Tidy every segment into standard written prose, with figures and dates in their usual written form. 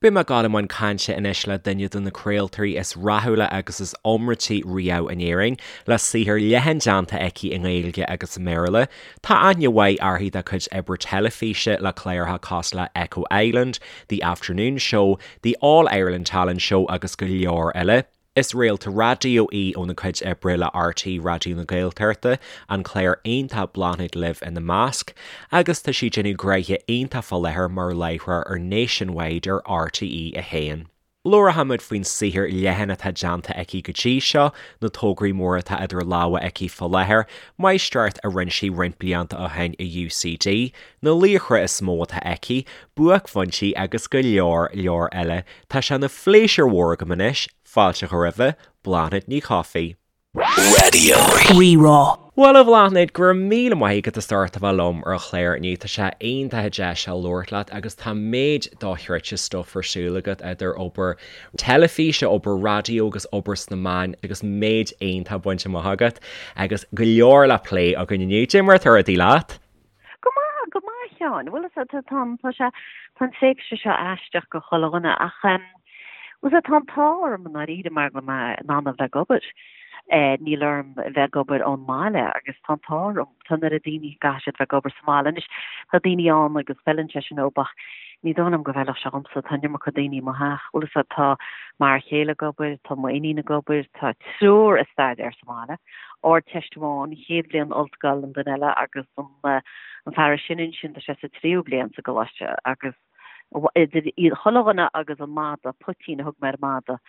Beidh mé ag dul i mbun cainte anois le duine de na craoltóirí is rathúla agus is iomráití riamh in Éirinn, le saothar leathan déanta aici i nGaeilge agus i mBéarla. Tá aithne mhaith uirthi dá cuid oibre teilifíse le cláracha cosúil le Echo Island, The Afternoon Show, The All Ireland Talent Show agus go leor eile. Is réalta raidió í óna cuid oibre le RTÉ Raidió na Gaeltachta, an clár iontach Bláthnaid Libh ina measc, agus tá sí ag déanamh gnoithe iontach fá láthair mar láithreoir ar Nationwide ar RTÉ 1. Labharfaimid faoin saothar leathan atá déanta aici go dtí seo, na tograí móra atá idir lámha aici fá láthair, máistreacht a rinne sí roinnt blianta ó shin i UCD, na laochra is mó atá aici, buaicphointí agus go leor leor eile. Tá sé ina phléisiúr mhór agam anois fáilte a chur roimhe, Bláthnaid Ní Chofaigh. Raidió Rí-Rá. Bhuel a Bhláthnaid, go raibh míle maith agat as ucht a bheith liom ar an chlár inniu. Tá sé iontach an deis seo labhairt leat agus tá méid dochreidte stuif ar siúl agat idir obair teilifíse, obair raidió agus obair sna meáin agus méid iontach bainte amach agat agus go leor le plé againn inniu. Cad é mar atá rudaí leat? Go maith, go maith, a Sheáin. Bhuel, is ea, tá, tá sé, tá an tréimhse seo aisteach go chuile dhuine ach, em, bhuel, tá an t-ádh orm i ndáiríre mar go bhfuil mé in ann a bheith ag obair. Eh, níl orm a bheith ag obair ón mbaile agus tá an t-ádh orm. Tá an oiread daoine go gcaithfidh siad bheith ag obair sa mbaile. Anois, tá daoine ann agus feileann sé sin dóibh ach ní dóigh liom go bhfeilfeadh sé dhomsa. Tá an iomarca daoine i mo theach. Bhuel, is ea, tá m'fhear chéile ag obair, tá m'iníon ag obair, tá triúr ag staidéar sa mbaile. Ardteist amháin, chéad bhliain ollscoil an duine eile agus an fear is sine ansin tá sé sa tríú bliain sa gcoláiste agus idir iad chuile dhuine agus an madadh, Poitín a thug mé ar an madadh,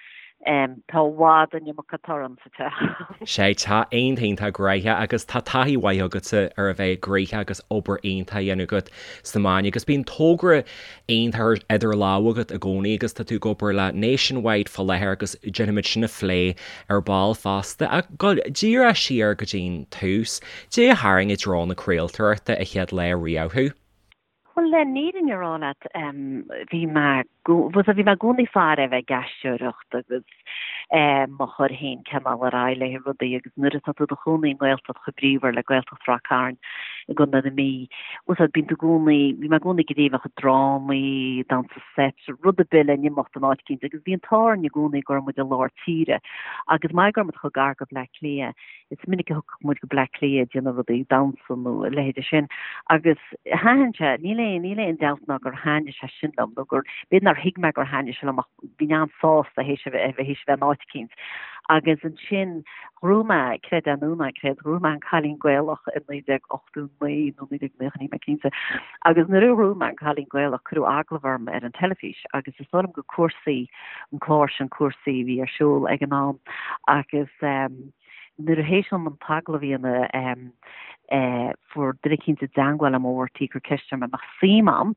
tá i bhfad an iomarca torann sa teach. Sea, tá iontach iontach gnoitheach agus tá taithí mhaith agatsa ar a bheith gnoitheach agus obair iontach a dhéanamh agat sna meáin agus bíonn togra iontach idir lámha agat i gcónaí agus tá tú ag obair le Nationwide fá láthair agus déanfaimid sin a phlé ar ball fosta. Ach dul díreach siar go dtí'n tús, cad é a tharraing i dtreo na craoltóireachta an chéad lá riamh thú? Bhuel, le fírinne a rá leat, bhí mé, bhí mé i gcónaí ag faire a bheith ag aisteoireacht agus mo chur féin cineál ar aghaidh le rudaí agus nuair atá tú i do chónaí i nGaeltacht chomh bríomhar le Gaeltacht Ráth Cairn i gContae na Mí, bhuel bíonn tú i gcónaí, bhí mé i gcónaí ag iarraidh a bheith ag drámaí, damhsa seit, rud ar bith le n-imeacht in áit eicínt agus bhí an t-ádh orainn i gcónaí go raibh muid i lár tíre agus mar go raibh muid chomh gar go Bleá Cliath, is minic a thiocfadh muid go Bleá Cliath ag déanamh rudaí, damhsa nó a leithéide sin agus thaitin sé, níl aon, níl aon dabht ná gur thaitnigh sé sin liom nó gur, b'fhéidir nár thuig mé gur thaitnigh sé liom ach bhínn an-sásta théis a bheith, théis a bheith in áit eicínt. Agus ansin ghnóthaigh mé, creid é nó ná creid, ghnóthaigh mé An Cailín Gaelach i 1989 nó 1990, níl mé cinnte, agus nuair a ghnóthaigh mé An Cailín Gaelach cuireadh agallamh orm ar an teilifís agus is dóigh liom gur Cúrsaí, an clár sin Cúrsaí a bhí ar siúl ag an am agus nuair a théis dom an t-agallamh a dhéanamh fuair duine eicínt i dteangmháil liom ó RTÉ ag cur ceist orm an mbeadh suim a'm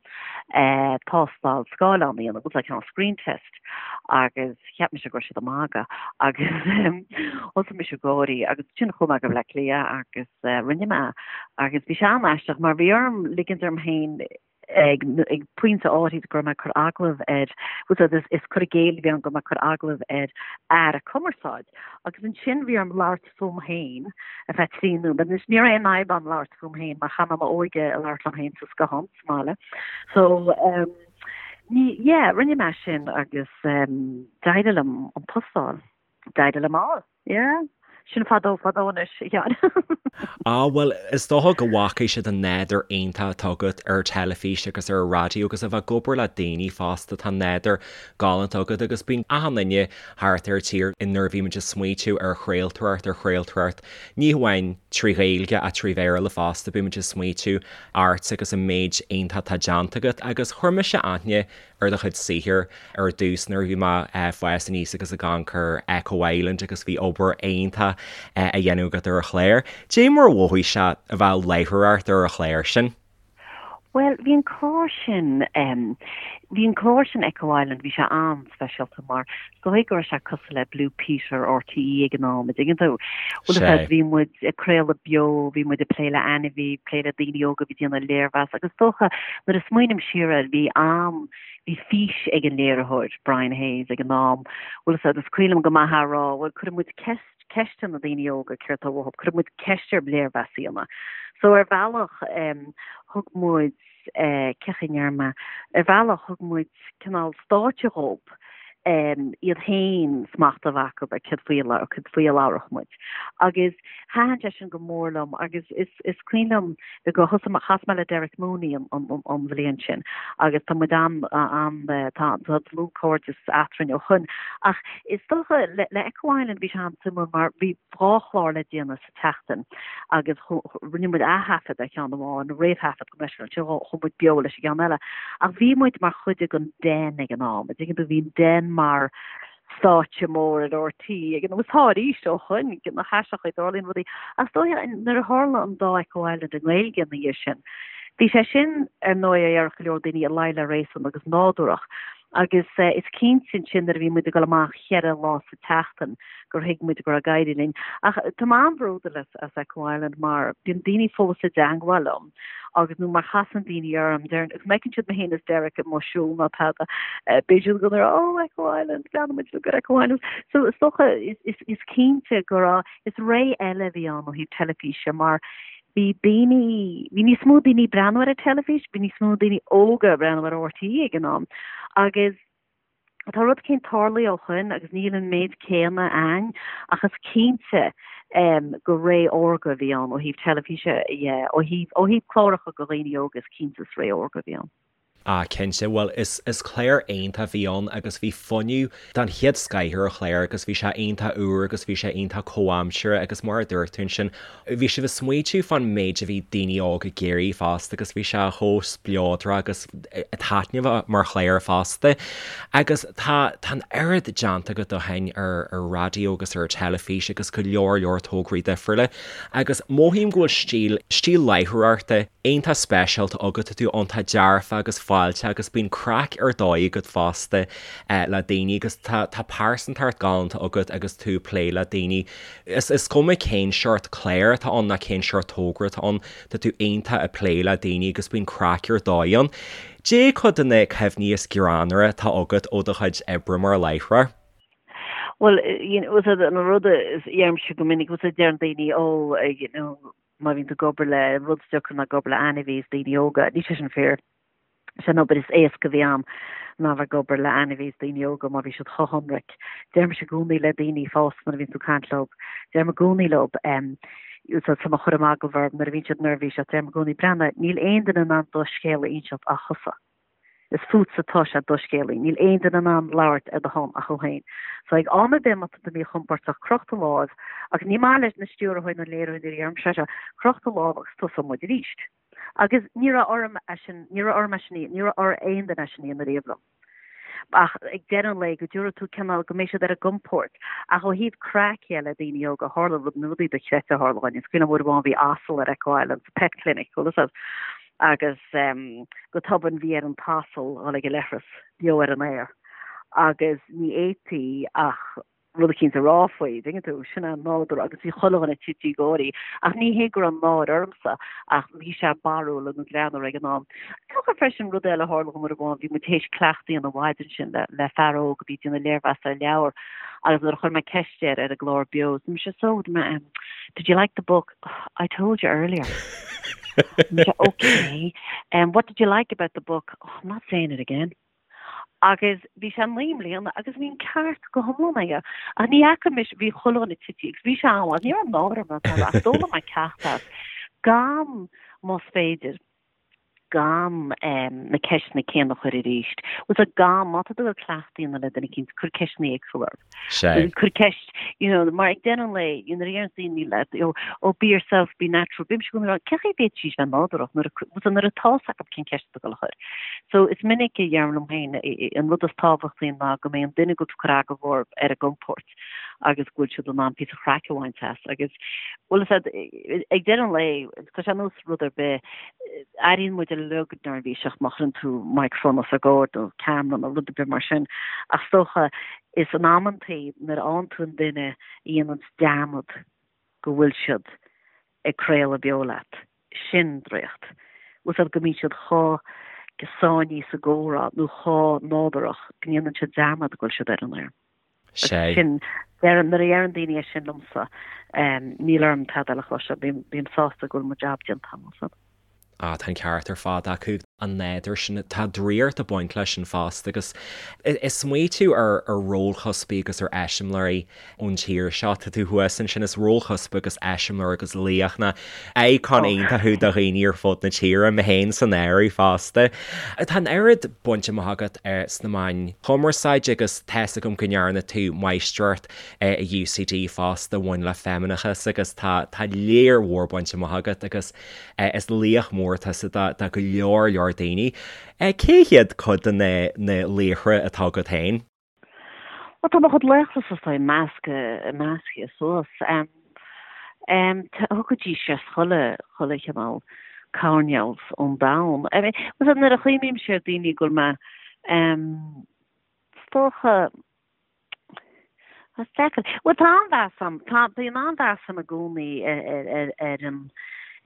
tástáil scáileáin a dhéanamh, it was like a screen test agus cheap mise go raibh siad ag magadh agus thosaigh mise ag gáirí agus ansin chuaigh mé go Bleá Cliath agus rinne mé agus bhí sé an-aisteach mar bhí orm ligint orm féin ag pointe áirid go raibh mé ag cur agallamh ar, bhuel is, is cur i gcéill a bhí ann go raibh mé ag cur agallamh ar aire cumarsáid agus ansin bhí orm labhairt fúm féin ar feadh 3 nóiméad. Anois ní raibh aon fhadhb agam labhairt fúm féin mar chaith mé m'óige ag labhairt liom féin sa scothán sa mbaile. So um, ní, yeah, rinne mé sin agus um, d'éirigh liom an post a fháil. D'éirigh liom é a fháil. Yeah. Sin fadó fadó anois, a Sheáin. Á, bhuel, is dócha go bhfaca siad an nádúr iontach atá agat ar teilifís agus ar an raidió agus a bheith ag obair le daoine fosta, tá nádúr galánta agat agus bíonn achan duine thart ar an tír nuair a bhímid ag smaoitiú ar chraoltóireacht, ar chraoltóireacht ní hamháin trí Ghaeilge ach trí Bhéarla fosta, bímid ag smaoitiú ort agus an méid iontach atá déanta agat agus chuir mise aithne ar do chuid saothair ar dtús nuair a bhí mé ag fás aníos agus ag amharc ar Echo Island agus bhí obair iontach á dhéanamh agat ar an chlár. Cad é mar a mhothaigh sé a bheith ag láithreoireacht ar an chlár sin? Bhuel, bhí an clár sin, bhí an clár sin Echo Island, bhí sé an-speisialta mar is dóigh go raibh sé cosúil le Blue Peter RTÉ ag an am, an dtuigeann tú? Bhuel, is ea, bhí muid ag craoladh beo, bhí muid ag plé le ainmhí, plé le daoine óga a bhí ag déanamh léirmheas agus is dócha nuair a smaoiním siar air, bhí am, bhí fís ag an léiritheoir, Brian Hayes, ag an am, bhuel, is ea, is cuimhin liom go maith é a rá, bhuel, cuirfidh muid ceist, ceist ar na daoine óga céard atá uathu, cuirfidh muid ceist ar léirmheas a dhéanamh. So ar bhealach, thug muid. cén chaoi a ndéarfaidh mé, ar bhealach thug muid cineál stáitse dhób, iad féin smacht a bheith acu ar céard faoi a céard faoi a labharfadh muid. Agus thaitin sé sin go mór liom agus is is cuimhin liom go thosaigh mé chas mé le Derek Mooney an an an bhliain sin agus tá muid an an tá tá dlúthchairdeas eadrainn ó shoin. Ach is dócha le le Echo Island bhí sé an-suimiúil mar bhí 2 chlár le déanamh sa tseachtain agus rinne muid ath-thaifead ar cheann amháin, réamhthaifead gabh mo leithscéal, ansin chuaigh muid beo leis an gceann eile. Ach bhí muid mar chuid den Den ag an am, an dtuigeann tú, bhí an Den mar stáitse mór ar RTÉ ag an am, agus tá arís ó shoin, nach aisteach a dtarlaíonn rudaí. Ach is dóiche nuair a tharla an dá Echo Island i nGaeilge ina dhiaidh sin, bhí sé sin ar ndóigh a déarfadh go leor daoine i luí le réasún agus nádúrach. Agus is cinnte ansin nuair a bhí muid ag dul amach cheithre lá sa tseachtain gur thuig muid go raibh ag éirí linn. Ach tá mé an-bhródúil as as Echo Island mar bíonn daoine fós i dteangmháil liom agus nó mar chasann daoine orm deireann agus má fheiceann siad mé féin is Derek amuigh ag siúl nó tada beidh siad ag rá oh Echo Island leanann muid go Echo Island. So is dócha is is is cinnte go raibh is ré eile a bhí ann ó thaobh teilifíse mar bhí daoine, bhí níos mó daoine ag breathnú ar an teilifís, bhí níos mó daoine óga ag breathnú ar RTÉ ag an am agus tá rud éicint tarlaithe ó shoin agus níl an méid céanna ann ach is cinnte gur ré órga a bhí ann ó thaobh teilifíse dhe, ó thaobh, ó thaobh cláracha do dhaoine óga is cinnte is ré órga a bhí ann. Ah cinnte, bhuel is is clár iontach a bhí ann agus bhí fuinneamh den chéad scoith ar an chlár agus bhí sé iontach úr agus bhí sé iontach comhaimseartha agus mar a dúirt tú ansin bhí sibh ag smaoitiú fán méid a bhí daoine óga ag iarraidh fosta agus bhí sé chomh spleodrach agus taitneamhach mar chlár fosta. Agus tá tá an oiread déanta agat ó shin ar ar raidió agus ar teilifís agus go leor leor tograí difriúla agus mothaím go bhfuil stíl stíl láithreoireachta iontach speisialta agat, tá tú iontach dearfa agus fáilteach agus bíonn craic ar dóigh agat fosta le daoine agus tá tá pearsantacht galánta agat agus tú ag plé le daoine. Is is cuma cén seort clár atá ann ná cén seort togra atá ann, tá tú iontach ag plé le daoine agus bíonn craic ar dóigh ann. Cad é cuid de na cuimhní is greannmhaire atá agat ó do chuid oibre mar láithreoir? Bhuel, you know, an rud a deirimse go minic, deireann daoine, oh, you know, má bhíonn tú ag obair le rud is deacra ná ag obair le ainmhí is daoine óga. Níl sé sin fíor. Is é an obair is éasca a bhí a'm ná bheith ag obair le ainmhí is daoine óga mar bhí siad chomh hionraic. Deirimse i gcónaí le daoine fásta nuair a bhíonn tú ag caint leo, deirim i gcónaí leo, so tá mé ag cur agallamh orthu nuair a bhíonn siad neirbhíseach, deirim i gcónaí, breathnaigh, níl aon duine in ann do scéal a inseacht ach thusa. Is fútsa atá sé do scéal. Níl aon duine in ann labhairt ar do shon ach thú féin. So ag am ar bith má tá tú míchompordach, croch do láimh, agus ní maith leis na stiúrthóirí nó léiritheoirí nuair a deirimse é seo, croch do lámh agus tosóidh muid arís. Agus ní raibh orm é sin, ní raibh orm é sin, ní raibh ar aon duine é sin a dhéanamh riamh liom. Ach ag deireadh an lae, go dtabharfaidh tú cineál, go mbeidh siad ar a gcompord. Ach ó thaobh craic dhe le daoine óga, tharla rud, na rudaí dochreidte a tharla dhúinn. Is cuimhin liom uair amháin bhí asal ar Echo Island sa Pet Clinic, bhfuil fhios a'd. Agus go tobann bhí ar an t-asal dhul ag an leithreas beo ar an aer agus ní fhéadfaí ach rud eicínt a rá faoi, dtuigeann tú, sin é an nádúr agus bhí chuile dhuine tite ag gáirí. Ach ní hé go raibh náire ormsa ach bhí sé barrúil nó greannmhar ag an am. Is dócha freisin rud eile a tharla dhom uair amháin, bhí muid théis cleachtadh a dhéanamh an mhaidin sin le le fear óg a bhí ag déanamh léirmheas ar leabhar agus nuair a chuir mé ceist air ar an gclár beo, dúirt mise, so, did you like the book? I told you earlier. okay. Um, what did you like about the book? Oh, I'm not saying it again. Agus bhí sé naoi mbliana agus bhí an ceart go hiomlán aige. Ach ní fhaca mise bhí chuile dhuine tite agus bhí sé an ní raibh náire orm ach d'fhoghlaim mé ceacht as gan más féidir gan na ceisteanna céanna a chur arís. Bhfuil fhios a'd gan, má tá tú ag cleachtadh a dhéanamh le duine eicínt, cuir ceisteanna éagsúla orthu. Sea. Cuir ceist, you know, mar ag deireadh an lae, you know, nuair a deireann daoine leat, you know, oh, be yourself, be natural, bímse i gcónaí ag rá, cén chaoi a bhféadfaidís bheith nádúrach nuair a, bhfuil fhios a'd, nuair atá fhios acu cén ceist atá ag dul a chur. So, is minic a dheirim liom féin, an rud is tábhachtaí ná go mbeidh an duine go bhfuil tú ag cur agallamh orthu ar a gcompord. agus go bhfuil siad in ann píosa craic a bhaint as agus bhfuil fhios a'd ag deireadh an lae tá sé ar nós rud ar bith airíonn muid uilig neirbhíseach má chuireann tú microphone os ár gcomhair nó ceamara nó rud ar bith mar sin ach is dócha is in amantaí nuair a fhaigheann tú an duine a dhéanann dearmad go bhfuil siad ag craoladh beo leat sin draíocht. Bhfuil fhios a'd go mbíonn siad chomh sáinnithe sa gcomhrá nó chomh nádúrach go ndéanann siad dearmad go bhfuil siad ar an aer. Sea. Sin, nuair a deireann daoine é sin liomsa, níl orm tada eile a chloisteáil, bím sásta go bhfuil mo jab déanta agam. Ah, tá an ceart ar fad acu. An nádúr sin, tá draíocht ag baint leis sin fosta agus is smaoitiú ar rólchuspaí agus ar eiseamláirí ón tír seo, tá tú thuas ansin, is rólchuspa agus eiseamláir agus laoch nó icon iontach thú do dhaoine ar fud na tíre, mé féin san áireamh fosta. Tá an oiread bainte amach agat sna meáin chumarsáide agus tá's agam go ndearna tú máistreacht i UCD fosta a bhain le feimineachas agus tá tá léar mhór bainte amach agat agus Is laoch mór tusa do go leor leor daoine. Cé hiad cuid de na laochra atá agat féin? Bhuel, tá mo chuid laochra is dóigh measctha, measctha suas. Thiocfaidís as chuile, chuile chineál coirnéal ón domhan. I mean, nuair a chuimhnímse ar daoine go bhfuil mé, is dócha, Is deacair. Bhuel, tá an-mheas agam, tá, bíonn an-mheas agam i gcónaí ar, ar an,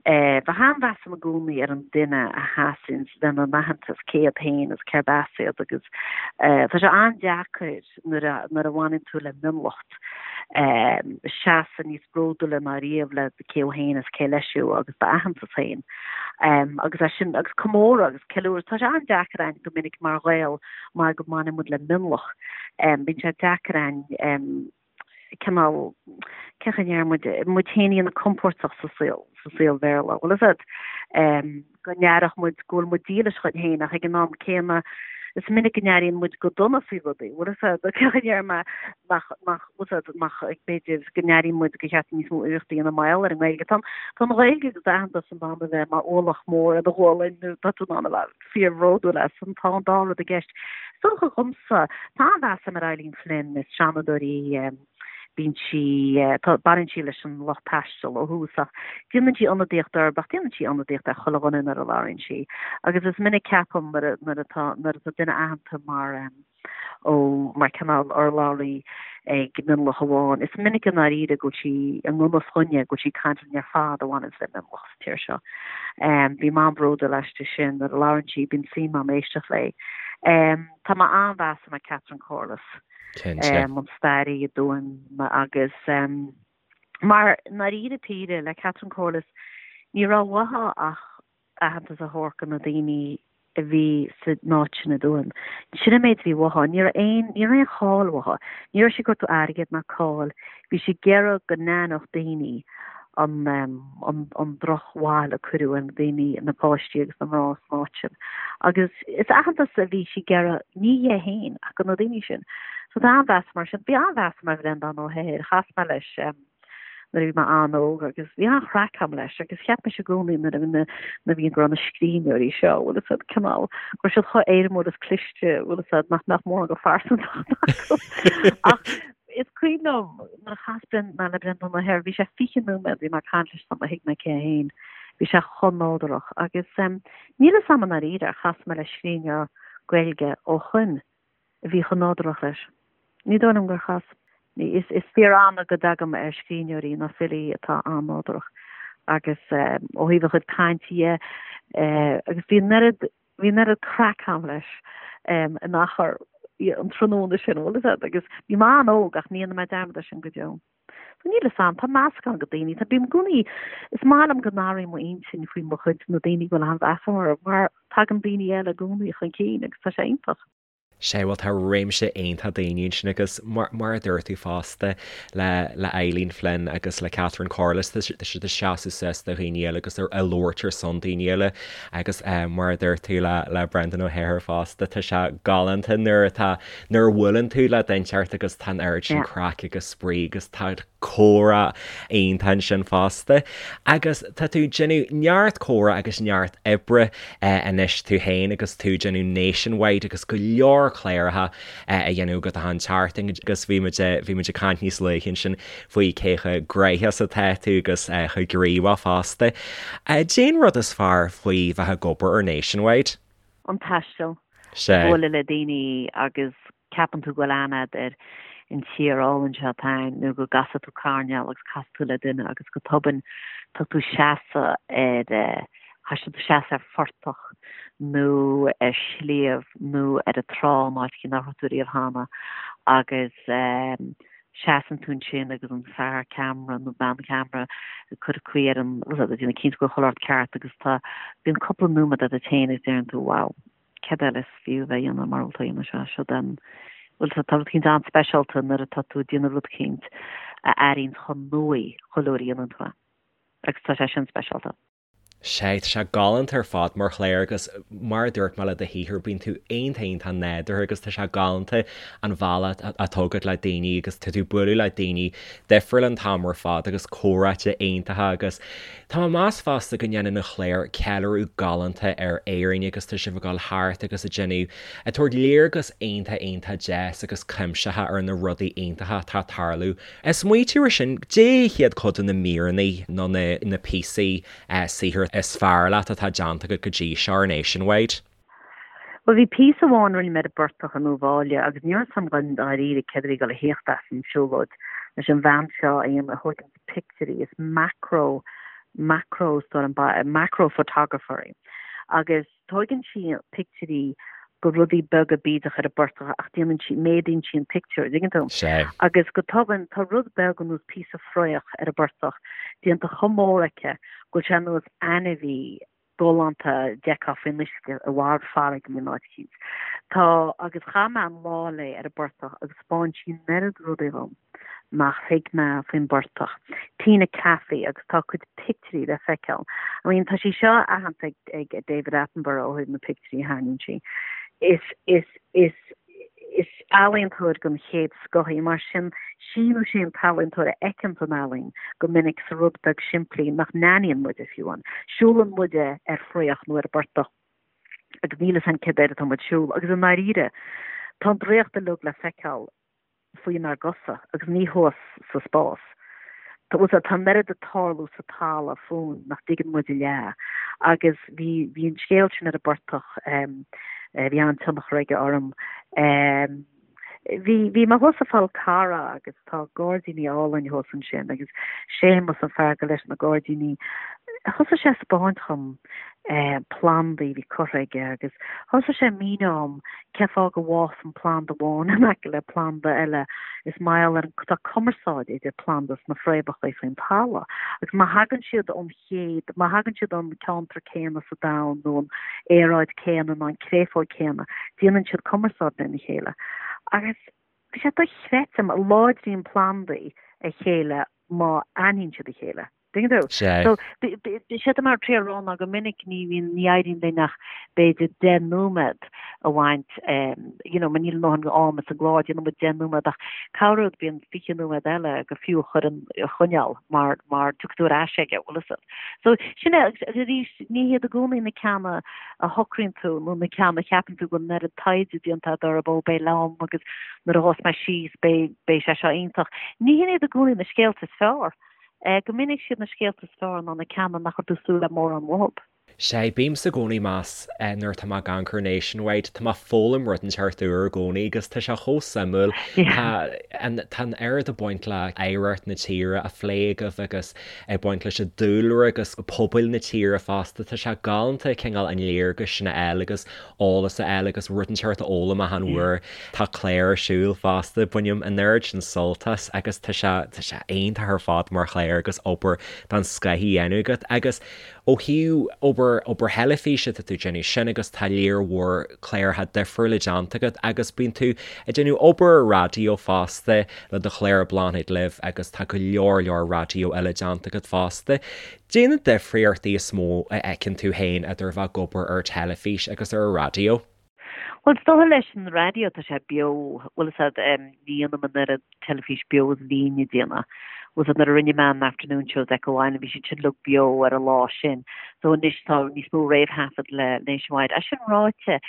bheadh an-mheas agam i gcónaí ar an duine a sheasann lena n-aitheantas, cé iad féin agus cérb as iad agus tá sé an-deacair nuair a, nuair a bhaineann tú le mionlacht seasamh níos bródúla ná riamh le cé thú féin is cé leis thú agus d'aitheantas féin. Agus é sin, agus comóradh agus ceiliúradh, tá sé an-deacair a'inn go minic mar Ghaeil mar go mbaineann muid le mionlach. Bíonn sé deacair a'inn cineál, cén chaoi a ndeir muid, muid féin a dhéanamh compóirteach sa saol, sa saol Bhéarla. Bhfuil fhios a'd, go n-aireodh muid go bhfuil muid dílis dhuinn féin ach ag an am céanna is minic go n-airíonn muid go dona faoi rudaí. Bhfuil fhios a'd, cén chaoi a ndeir mé, nach, nach, bhfuil fhios a'd, nach, b'fhéidir go n-airíonn muid gur cheart níos mó iarrachtaí a dhéanamh mar gheall ar an nGaeilge. Tá, tá an Ghaeilge agus d'aitheantas in ann a bheith mar ualach mór ar do ghualainn nó tá tú in ann a bheith fíorbhródúil as, tá an dá rud i gceist. Is dócha dhomsa, tá an-mheas agam ar Eileen Flynn, is seanadóir í, bíonn sí, tá, baineann sí leis an lucht taistil ó thús ach déanann sí ionadaíocht orthu ach déanann sí ionadaíocht ar chuile dhuine nuair a labhraíonn sí. Agus is minic ceapaim nuair a, nuair atá, nuair atá duine aitheanta mar, ó mar cineál urlabhraí ag mionlach amháin. Is minic i ndáiríre go bhfuil sí i ngan fhios dhúinne, go bhfuil sí ag caint linn ar fad a bhaineanns le mionlach sa tír seo. Bím an-bhródúil aisti sin nuair a labhrann sí, bíonn suim agam éisteacht léi. Tá mé an-mheas agam ar Catherine Corless, an staraí i dTuaim agus mar i ndáiríre píre le Catherine Corless ní raibh uaithi ach aitheantas a thabhairt do na daoine a bhí san áit sin i dTuaim. Sin an méid a bhí uaithi. Ní raibh aon, ní raibh aon cháil uaithi. Ní raibh sí ag cuartú airgid ná cáil. Bhí sí ag iarraidh go n-aithneodh daoine an, an, an drochbhail a cuireadh ar na daoine, na páistí agus na mná san áit sin. Agus is aitheantas a bhí sí ag iarraidh, ní dhi féin, ach do na daoine sin. So tá an-mheas mar sin. Bhí an-mheas agam ar Bhreandán Ó hEithir. Chas mé leis, nuair a bhí mé an-óg agus bhí an-chraic agam leis agus cheap mise i gcónaí nuair a bhí na nuair a bhí go raibh na scríbhneoirí seo bhfuil fhios a'd cineál go raibh siad chomh éirimiúil is cliste bhfuil fhios a'd nach mbeadh mórán de phearsantacht acu ach is cuimhin liom nuair a chas Bren mé le Breandán Ó hEithir bhí sé 20 nóiméad bhí mé ag caint leis sula thuig mé cé é féin bhí sé chomh nádúrach agus um, níl fhios a'm i ndáiríre ar chas mé le scríbhneoir Gaeilge ó shoin a bhí chomh nádúrach leis. Ní dóigh liom gur chas. Is fíor-annamh go dtagaim ar scríbhneoirí nó filí atá an-nádúrach agus ó thaobh a chuid cainte dhe agus bhí an oiread, bhí an oiread craic agam leis in achar an tráthnóna sin, bhfuil fhios a'd, agus bhí mé an-óg ach ní dhéanfaidh mé dearmad air sin go deo. So níl fhios a'm, tá meascán de daoine, tá, bím i gcónaí, is maith liom go n-athraím m'intinn faoi mo chuid, na daoine go bhfuil an-mheas agam orthu, mar tagann daoine eile i gcónaí chun cinn agus tá sé iontach. Sea, bhuel tá réimse iontach daoine ansin agus mar, mar a dúirt tú fosta le, le Eileen Flynn agus le Catherine Corless, tá siad ag seasamh suas do dhaoine eile agus ag labhairt ar son daoine eile agus mar a dúirt tú le, le Brendan Ó hEithir fosta, tá sé galánta nuair atá, nuair a bhuaileann tú le duine inteacht agus tá an oiread sin craic agus spraoi agus tá comhrá iontach ansin fosta. Agus tá tú ag déanamh neart comhrá agus neart oibre anois tú féin agus tú ag déanamh Nationwide agus go leor cláracha a dhéanamh agat achan tseachtain agus bhí muid bhí muid ag caint níos luaithe ansin faoi cé chomh gnóthach is atá tú agus chomh gníomhach fosta. Cad é an rud is fearr faoi bheith ag obair ar Nationwide? An taisteal. Bualadh le daoine agus ceapann tú go bhfuil aithne agat ar an tír álainn seo atá ann nó go gcasfaidh tú coirnéal agus casfaidh tú le duine agus go tobann tá tú seasamh ar caithfidh tú seasamh ar phortach nó ar shliabh nó ar an trá in áit nach raibh tú riamh cheana agus. Seasann tú ansin agus an fear ceamara nó bean cheamara ag cur caoi ar an, bhfuil a fhios agat, déanamh cinnte go bhfuil chuile shórt ceart agus tá, bíonn cúpla nóiméad agat féin agus deireann tú wow, céard eile is fiú a bheith a dhéanamh mura bhfuil tú a dhéanamh seo, seo den, bhuel tá rud eicínt an-speisialta nuair atá tú ag déanamh rud eicínt a airíonn chomh nua chuile uair a dhéanann tú é agus tá sé sin speisialta. Sea, tá sé galánta ar fad mar chlár agus mar a dúirt mé le do shaothar, bíonn tú iontach iontach nádúrtha agus tá sé galánta an bealach atá agat le daoine agus tá tú ag bualadh le daoine difriúla an t-am ar fad agus comhráite iontacha agus tá mé ag meas fosta go ndéanann an chlár ceiliúradh galánta ar Éirinn agus tá sibh ag dul thart agus ag déanamh, ag tabhairt léargas iontach iontach deas agus cuimsitheach ar na rudaí iontacha atá ag tarlú Ag smaoitiú ar sin, caidé hiad cuid de na míreanna nó na píosaí saothair is fearr leat atá déanta agat go dtí seo ar Nationwide? Bhuel, bhí píosa amháin a rinne mé ar an bportach i nDún Bháille agus ní raibh a fhios agam dáiríre céard a bhí ag dul a thíocht as an siúlóid leis an bhean seo a dhéanamh a thóigeann pictiúirí, is macro, macro, macro photographer í agus Tóigeann sí pictiúirí go rudaí beaga bídeach ar an bportach ach déanann sí, méadaíonn sí an pictiúr, an dtuigeann tú? Sea. Agus go tobann tá rud beag ar nós píosa fraoch ar an bportach déanta chomh mór aici go bhfuil sé ar nós ainmhí galánta a d'fheicfeá faoin uisce i lár farraige in áit eicínt. Tá, agus chaith mé an lá léi ar an bportach agus 'spáin sí an oiread rudaí dhom. nach thuig mé faoin bportach. Tina Caffey agus tá a cuid pictiúirí le feiceáil. I mean tá sí seo aitheanta ag David Attenborough ó thaobh na pictiúirí a tharraingíonn sí. Is is is is ealaíontóir den chéad scoth í mar sin sí nó sé an t-ealaíontóir a fheiceann an ealaín go minic sa rud beag simplí nach n-aithníonn muide fiú amháin. Siúlann muide ar fraoch nó ar an bportach agus níl a fhios againn céard air atá muid ag siúl agus i ndáiríre tá an draíocht uilig le feiceáil faoinár gcosa agus ní thuas sa spás. Tá tá an oiread ag tarlú sa talamh fúinn nach dtuigeann muid a leath. Agus bhí bhí an scéal sin ar an bportach, bhí an-tionchar aige orm. Bhí bhí mé thuas sa Fhál Carrach agus tá gairdíní álainn thuas ansin agus Séamus an fear gur leis na gairdíní. Thosaigh sé ag 'spáint dhom plandaí a bhí curtha aige agus thosaigh sé ag míniú dhom cé fáth go bhfásann planda amháin in aice le planda eile. Is mar gheall ar an, tá cumarsáid idir planda sna fréamhacha faoin talamh agus má thagann siad ón chéad, má thagann siad ón ceantar céanna sa domhan nó an aeráid céanna nó an créafóg céanna, déanann siad cumarsáid lena chéile. Agus bhí sé dochreidte, láidríonn plandaí a chéile má aithníonn siad a chéile. Tuigeann tú? Sea. So, séard atá mé ag triail a rá ná go minic ní bhíonn, ní éiríonn linn ach b'fhéidir 10 nóiméad a bhaint, you know, mar níl a ndóthain ama sa gclár, déanann muid 10 nóiméad ach corruair bíonn 20 nóiméad eile gur fiú a chur in, a choinneáil mar, mar tiocfaidh tú ar ais aige, bhfuil fhios agat. So, sin é, agus arís, ní hiad i gcónaí na ceanna a shocraíonn tú nó na ceanna a cheapann tú go bhfuil an oiread taighde déanta agat orthu, ó beidh liom agus nuair a ghabhfas mé síos beidh, beidh sé seo iontach. Ní hin iad i gcónaí na scéalta is fearr. Go minic siad na scéalta is fearr ná na ceanna nach raibh tú ag súil le mórán uathu. Sea, bímse i gcónaí ag meas nuair atá mé ag amharc ar Nationwide, tá mé ag foghlaim rud inteacht úr i gcónaí agus tá sé chomh suimiúil. Tá an tá an oiread ag baint le hoidhreacht na tíre á phlé agaibh agus ag baint leis an dúlra agus pobail na tíre fosta. Tá sé galánta cineál an léargas sin a fháil agus eolas a fháil agus rud inteacht a fhoghlaim achan uair. Tá clár ar siúl fosta, bainim an oiread sin sult as agus tá sé, tá sé iontach ar fad mar chlár agus obair den scoth á dhéanamh agat. Agus ó thaobh obair, obair theilifíse, tá tú ag déanamh sin agus tá léar mhór cláracha difriúla déanta agat agus bíonn tú ag déanamh obair ar raidió fosta le do chlár Bláthnaid Libh agus tá go leor leor raidió eile déanta agat fosta. Caidé na difríochtaí is mó a fheiceann tú féin idir bheith ag obair ar teilifís agus ar an raidió? Bhuel, is dócha leis an raidió tá sé beo, bhfuil fhios a'd, ní dhéanaim an oiread teilifís beo is a bhínn ag déanamh. Bhfuil fhios a'd, nuair a rinne mé an Afternoon Show with Echo Island bhí siad sin uilig beo ar an lá sin. So anois tá níos mó réamhthaifead le Nationwide. É sin ráite,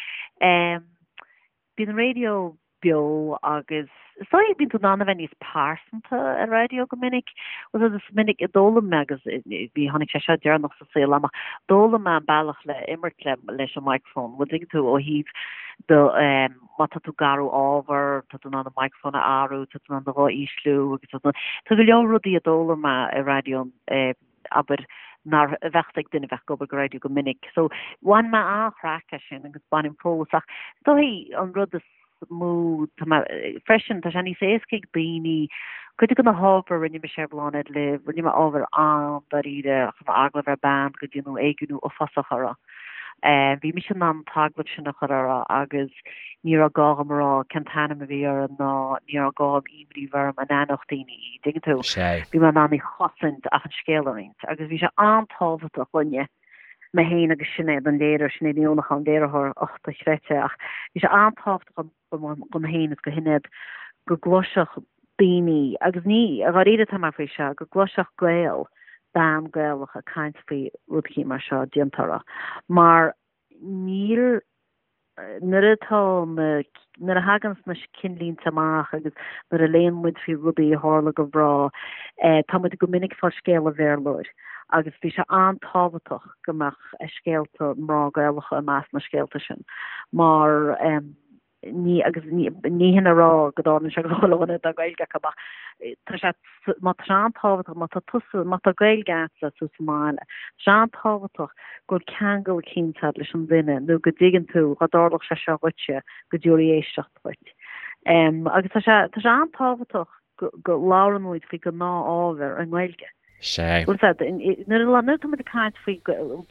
bíonn an raidió beo agus is dóigh bíonn tú in ann a bheith níos pearsanta ar raidió go minic. Bhuel is minic a d'fhoghlaim mé agus bhí tháinig sé seo deireanach sa saol amach, d'fhoghlaim mé an bealach le imirt le leis an microphone. Bhfuil tuigeann tú ó thaobh do má tá tú ag athrú ábhar, tá tú in ann an microphone a athrú, tá tú in ann do ghuth a ísliú agus tá tá go leor rudaí a d'fhoghlaim mé ar raidió abair nár bheadh ag duine a bheadh ag obair go raidió go minic. So bhain mé an-chraic as sin agus bainim fós ach is dóigh an rud is. mó, tá mé, freisin, tá sé níos éasca ag daoine, cuid de na hábhair a rinne mise ar Bláthnaid Libh, rinne mé ábhar an-dáiríre, chuir mé agallamh ar bean go déanadh éigniú uafásach uirthi. Bhí mise in ann an t-agallamh sin a chur uirthi agus ní raibh gá dhom a rá cén t-ainm a bhí uirthi ná ní raibh gá dhom imní a bheith orm an aithneodh daoine í, dtuigeann tú? Bhí mé in ann í chosaint ach an scéal a roinnt agus bhí sé an-tábhachtach dhúinne, mé féin agus Sinéad an léiritheoir, Sinéad Ní Uallacháin, an léiritheoir, och, dochreidte, ach bhí sé an-tábhachtach dhom féin is do Shinéad go gcloisfeadh daoine, agus ní, dháiríre atá mé faoi seo, go gcloisfeadh Gael, bean Gaelach ag caint faoi rud eicínt mar seo déanta uirthi, mar níl, nuair atá na, nuair a thaganns na cinnlínte amach agus nuair a léann muid faoi rudaí a tharla do mhná, tá muid go minic ag fáil scéal an Bhéarlóir agus bhí sé an-tábhachtach go mbeadh scéalta mná Gaelacha i measc na scéalta sin mar ní, agus ní, ní hin a rá go dtarlaíonn sé go chuile dhuine atá Gaeilge acu ach tá sé, má tá sé an-tábhachtach, má tá tusa, má tá Gaeilge agatsa is tú sa mbaile, tá sé an-tábhachtach go bhfuil ceangal eicínt agat leis an duine nó go dtuigeann tú dhá dtarlódh sé seo dhuitse go dtabharfaí éisteacht dhuit. Agus tá sé, tá sé an-tábhachtach go, go labhrann muid faoi gnáth-ábhar i nGaeilge. Sea. Bhfuil a fhios agat, nuair a nuair atá muid ag caint faoi,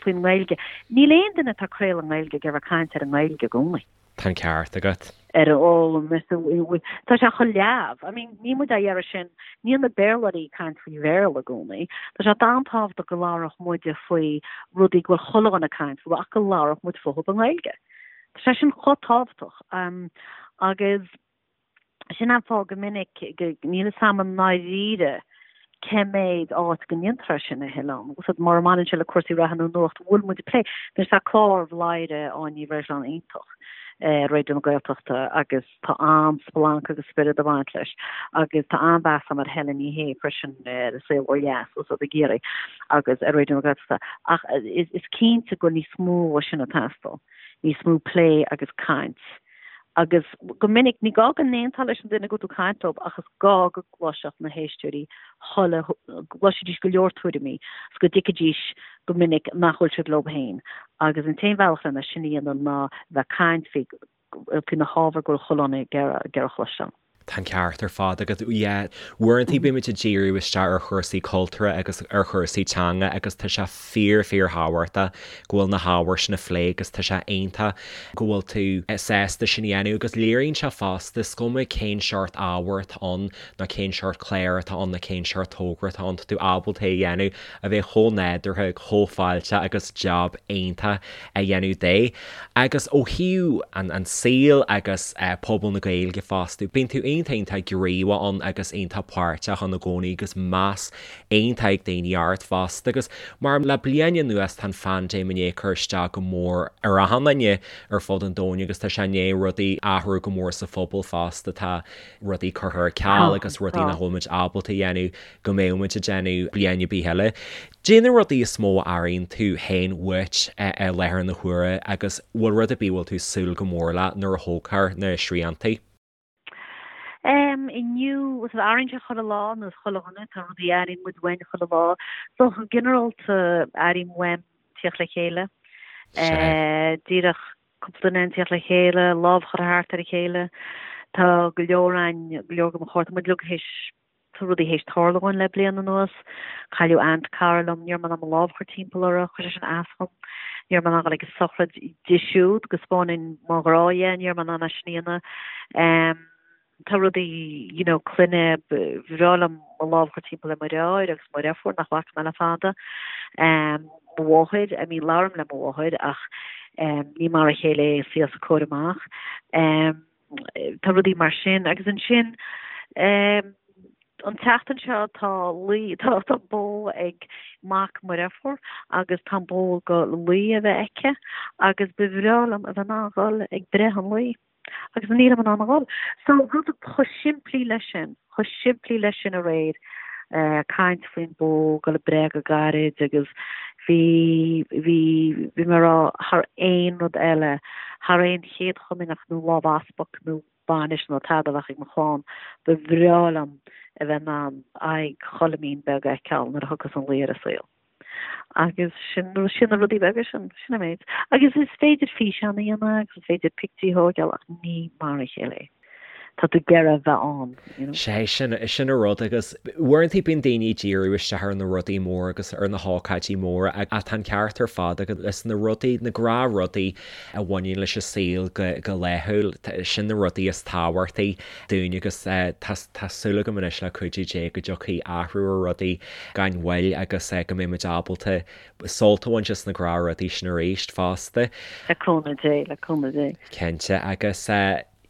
faoin nGaeilge, níl aon duine atá ag craoladh i nGaeilge ag iarraidh caint ar an nGaeilge i gcónaí. Tá an ceart agat. Ar an fhoghlaim, tá sé chomh leamh. I mean, níl muid á iarraidh sin, níl na Béarlóirí ag caint faoi Bhéarla i gcónaí. Tá sé an-tábhachtach go labhródh muide faoi rudaí go bhfuil chuile dhuine ag caint fúthu ach go labhródh muid fúthu i nGaeilge. Tá sé sin chomh tábhachtach. Agus Sin an fáth go minic go níl fhios a'm i ndáiríre cé méid áit go ndéantar é sin a thuilleadh. Bhfuil fhios a'd, mura mbaineann sé le cúrsaí reatha nó nuacht, bhfuil muid ag plé. Anois tá clár Bhladhaire Áine Ní Bhreisleáin iontach ar Raidió na Gaeltachta agus tá an-splanc agus spiorad ag baint leis agus tá an-mheas a'm ar Helen Ní Shé freisin ar An Saol Ó Dheas bhfuil fhios a'd i gCiarraí agus ar Raidió na Gaeltachta. Ach is cinnte go bhfuil níos mó dhe sin ag teastáil, níos mó plé agus caint. Agus go minic, ní gá go n-aontófá leis an duine go bhfuil tú ag caint leo ach is gá go gcloisfeadh na héisteoirí chuile, go gcloisfidís go leor tuairimí is go dtuigfidís go minic nach bhfuil siad leo féin. Agus an t-aon bhealach lena sin a dhéanamh ná bheith ag caint faoi, faoi na hábhair go bhfuil chuile dhuine ag iarraidh a chloisteáil. Tá an ceart ar fad agat. Yeah. Uaireanta bímid ag díriú isteach ar chúrsaí cultúrtha agus ar chúrsaí teanga agus tá sé fíor fíor thábhachtach go bhfuil na hábhair sin á phlé agus tá sé iontach go bhfuil tú sásta sin a dhéanamh agus léiríonn sé fosta, is cuma cén seort ábhair atá ann nó cén seort clár atá ann nó cén seort togra atá ann, tá tú ábalta é a dhéanamh a bheith chomh nádúrtha, chomh fáilteach agus jab iontach a dhéanamh de. Agus ó thaobh an saoil agus pobal na Gaeilge fosta, bíonn tú iontach iontach gníomhach ann agus iontach páirteach ann i gcónaí agus meas iontach ag daoine ort fosta. Agus mar le bliain anuas tá an phaindéim i ndiaidh cur isteach go mór ar achan duine ar fud an domhain agus tá sé i ndiaidh rudaí athrú go mór sa phobal fosta, tá rudaí curtha ar ceal agus rudaí nach bhfuil muid ábalta a dhéanamh go mbeadh muid ag déanamh bliain ar bith eile. Caidé na rudaí is mó a airíonn tú féin uait i láthair na huaire agus bhfuil rud ar bith a bhfuil tú ag súil go mór le nuair a thógfar na sriantaí? Em, inniu, bhfuil fhios a'd, airíonn sé chuile lá, ar nós chuile dhuine, tá rudaí a airíonn muid uainn chuile lá. So, go ginearálta, airím uaim tíocht le chéile. Eh, díreach cúpla duine ag tíocht le chéile, lámh a chur thart ar a chéile. Tá go leor againn, go leor de mo chairde, tá muid uilig théis Tá rudaí théis tarlú dhúinn le bliain anuas. Cailleadh aint cara liom, ní raibh mé in ann mo lámh a chur timpeall uirthi, chuir sé sin as dhom. Ní raibh mé in ann dul ag a sochraid di siúd go spáinfinn mo ghrá dhi, ní raibh mé in ann é sin a dhéanamh. Tá rudaí, you know, clainne, ba bhreá liom mo lámh a chur timpeall ar mo dheartháir agus mo dheirfiúr nach bhfaca mé le fada. Mo mháthair, I mean labhraím le mo mháthair ach ní mar a chéile é an saol os a comhair amach. Tá rudaí mar sin. Agus ansin, an tseachtain seo tá luí, tá tá bó ag mac mo dheirfiúr agus tá an bó ag dul luí a bheith aici agus ba bhreá liom a bheith in ann dhul ag breith an luí. Agus nílim in ann a dhul. So rud chomh simplí leis sin, chomh simplí leis sin aréir, caint faoin bó, dul ag breith go gairid agus bhí, bhí, bhí mé ag rá thar aon rud eile, thar aon chéad chomaoineach nó lámh easpaig nó bainis nó tada a bheadh ag mo chlann, ba bhreá liom a bheith in ann aghaidh Choilimín beag a fheiceáil nuair a thiocfas an luí ar an saol. Agus sin, sin na rudaí beaga sin, sin an méid. Agus is féidir físeán a dhéanamh agus is féidir pictiúr a thógáil ach ní mar a chéile é. Tá tú ag iarraidh a bheith ann, you know. Sé, sin, sin an rud agus uaireanta bíonn daoine ag díriú isteach ar na rudaí móra agus ar na hócáidí móra ach tá an ceart ar fad agat is na rudaí, na gnáthrudaí a bhaineann leis an saol go, go laethúil, sin na rudaí is tábhachtaí dúinn agus tá, tá súil agam anois le cuidiú Dé go dtiocfaidh athrú ar rudaí gan mhoill agus go mbeidh muid ábalta sult a bhaint as na gnáthrudaí sin arís fosta. Le cúnamh Dé, le cúnamh Dé. Cinnte agus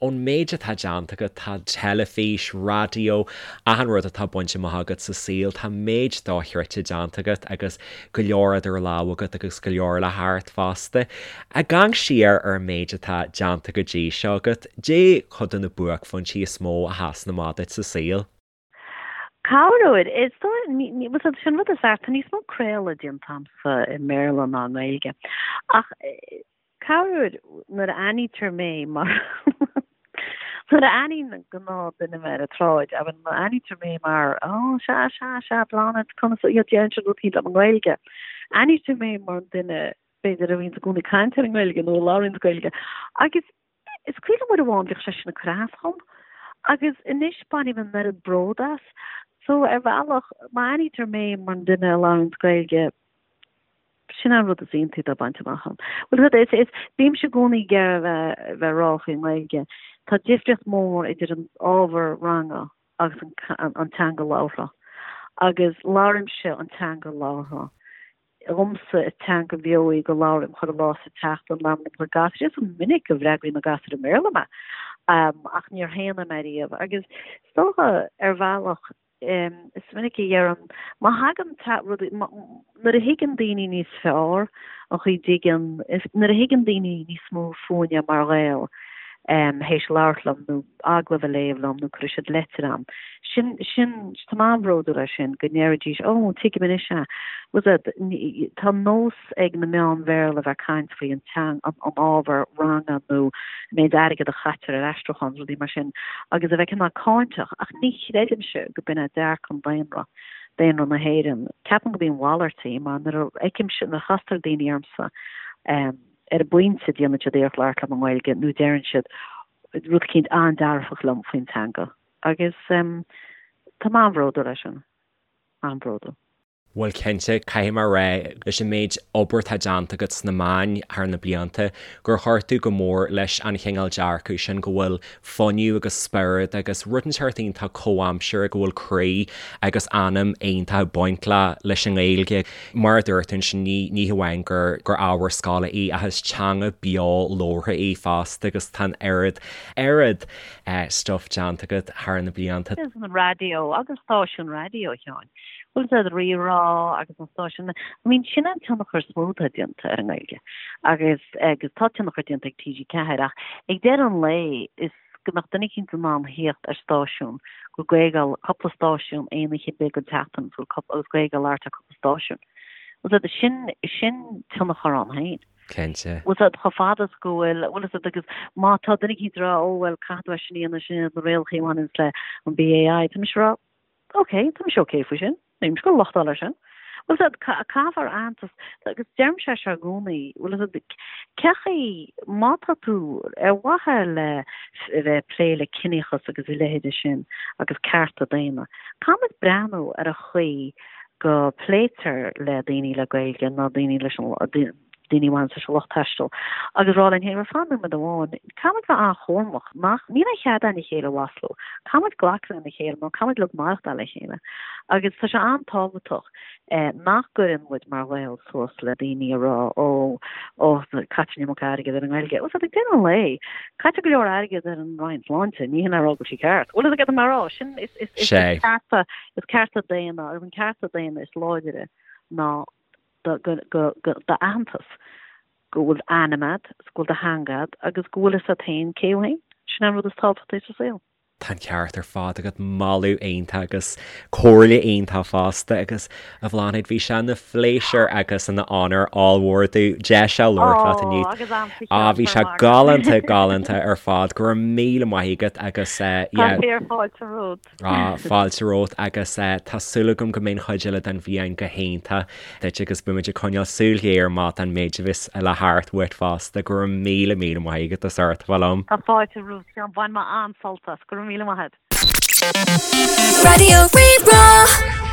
ón méid atá déanta agat, tá teilifís, raidió, achan rud atá bainte amach agat sa saol, tá méid dochreidte déanta agat agus go leor idir lámha agat agus go leor le theacht fosta. Ag amharc siar ar an méid atá déanta go dtí seo agat, caidé cuid de na buaicphointí is mó a sheasann amach duit sa saol? Corruair, is dóigh, bhuel, sin rud is fearr, tá níos mó craoladh déanta agamsa i mBéarla ná i nGaeilge. Ach corruair, nuair a aithnítear mé mar nuair a aithníonn gnáthdhuine mé ar an tsráid, I mean, nuair a aithnítear mé mar, oh, sea, sea, sea, Bláthnaid, conas, you know, deireann siad rudaí liom i nGaeilge. Aithnítear mé mar an duine, b'fhéidir, a bhíonns i gcónaí ag caint ar an nGaeilge nó a labhraíonns Gaeilge. Agus Is cuimhin liom uair amháin bhíodh sé sin ag cur as dhom agus anois bainim an oiread bród as. So ar bhealach, má aithnítear mé mar an duine a labhraíonns Gaeilge, sin an rud is iontaí atá bainte amach agam. Bhuel, rud is, is, bímse i gcónaí ag iarraidh a bheith, bheith ag rá faoin nGaeilge, tá difríocht mór idir an ábhar ranga agus an, an teanga labhartha. Agus labhraímse an teanga labhartha. Dhomsa is teanga bheo í go labhraím chuile lá sa tseachtain, labhraím le mo chuid gasúir. Is minic go bhfreagraíonn na gasúir i mBéarla mé, ach níor shéan mé riamh. Agus is dócha, ar bhealach, is minic a dheirim, má thagann rudaí, nuair a thuigeann daoine níos fearr an chaoi dtuigeann, nuair a thuigeann daoine níos mó fúinne mar Ghaeil, théis labhairt liom nó agallamh a léamh liom nó cuirfidh siad leitir a'm. Sin, sin, tá mé an-bhródúil as sin, go ndéarfaidís, oh, tuigim anois é. Bhfuil 's a'd, tá nós ag na meáin Bhéarla bheith ag caint faoi an teang, an, an ábhar ranga nó an méid airgead a chaitear ar aistriúchán, rudaí mar sin, agus a bheith cineál cáinteach, ach ní chreidimse go b'in é dearcadh an daonra, daonra na hÉireann. Ceapaim go b'í an mhalairt í, mar nuair a fheicimse, nuair a chastar daoine ormsa, ar an bpointe déanann siad iarracht labhairt liom i nGaeilge nó deireann siad rud eicínt an-dearfach liom faoin teanga agus tá mé an-bhródúil as sin, an-bhródúil. Bhuel cinnte, caithfidh mé a rá, leis an méid obair atá déanta agat sna meáin thar na blianta, gur chuir tú go mór leis an chineál dearcadh sin go bhfuil fuinneamh agus spiorad agus rud inteacht iontach comhaimseartha go bhfuil croí agus anam iontach ag baint le leis an nGaeilge. Mar a dúirt tú ansin, ní ní hamháin gur gur ábhar scoile í ach is teanga beo labhartha í fosta agus tá an oiread oiread stuif déanta agat thar na blianta. Agus an raidió agus stáisiún raidió, a Sheáin. Bhfuil 's a'd Rí-Rá agus an stáisiún, I mean sin an tionchar is mó atá déanta ar an nGaeilge agus agus tá tionchar déanta ag TG4 ach ag deireadh an lae is go mbeadh duine eicínt in ann theacht ar stáisiún go bhfuil Gaeilge á cúpla stáisiún aon oíche ar bith den tseachtain agus bhfuil agus Gaeilge á labhairt ar cúpla stáisiún. Bhfuil 's a'd sin sin tionchar ann féin. Cinnte. Bhfuil 's a'd chomh fada is go bhfuil bhfuil 's a'd agus má tá duine eicínt ag rá ó bhuel caithfidh tú é sin a dhéanamh sin iad na rialacha a bhaineanns le an BAI tá mise ag rá Ok, tá mise ok faoi sin. Níl mise ag gabháil a lochtáil air sin. Bhfuil 's a'd, caithfear aitheantas, agus deirimse é seo i gcónaí, bhfuil 's a'd, cé chaoi, má tá tú ar mhaithe le a bheith ag plé le ciníochas agus a leithéide sin agus cearta daonna, caithfimid breathnú ar an chaoi go pléitear le daoine le Gaeilge nó daoine leis an, daoine a bhaineann leis an lucht taistil agus rá linn féin, bhuel, fan nóiméad amháin, caithfimid bheith an-chúramach, nach, níl aon chead againn a chéile a mhaslú, caithfimid glacadh lena chéile nó caithfimid uilig maireachtáil le chéile. Agus tá sé an-tábhachtach nach gcuireann muid mar Ghaeil suas le daoine a rá, ó, ó, caitear an iomarca airgead ar an nGaeilge. Bhuel, ag deireadh an lae, caitear go leor airgead ar an Roinn Sláinte, ní hin a rá go bhfuil sí ceart. Bhuel, is ag mar rá, sin, is, is, is cearta, is cearta daonna, agus an cearta daonna is láidre ná d'aitheantas, go bhfuil ainm agat, go bhfuil do theanga agat agus go bhfuil fhios agat féin cé thú féin. Sin an rud is tábhachtaí sa saol. Tá an ceart ar fad agat, moladh iontach agus comhairle iontach fosta agus a Bhláthnaid bhí sé ina phléisiúr agus ina onóir ollmhór domh deis a labhairt leat inniu. Ó, agus a'msa Á, bhí sé galánta, galánta ar fad. Go raibh míle maith agat agus eh, yeah. Tá fíor fáilte romhat. Á, fáilte romhat agus tá súil agam go mbeidh an chuid eile den bhliain go hiontach duit agus beimid ag coinneáil súil ghéar amach don méid a bheas le theacht uait fosta. Go raibh míle, míle maith agat as ucht a bheith liom. Tá fáilte romhat, a Sheáin. Bhain mé an-sult as. Go raibh míle maith agat. Raidió Rí-Rá.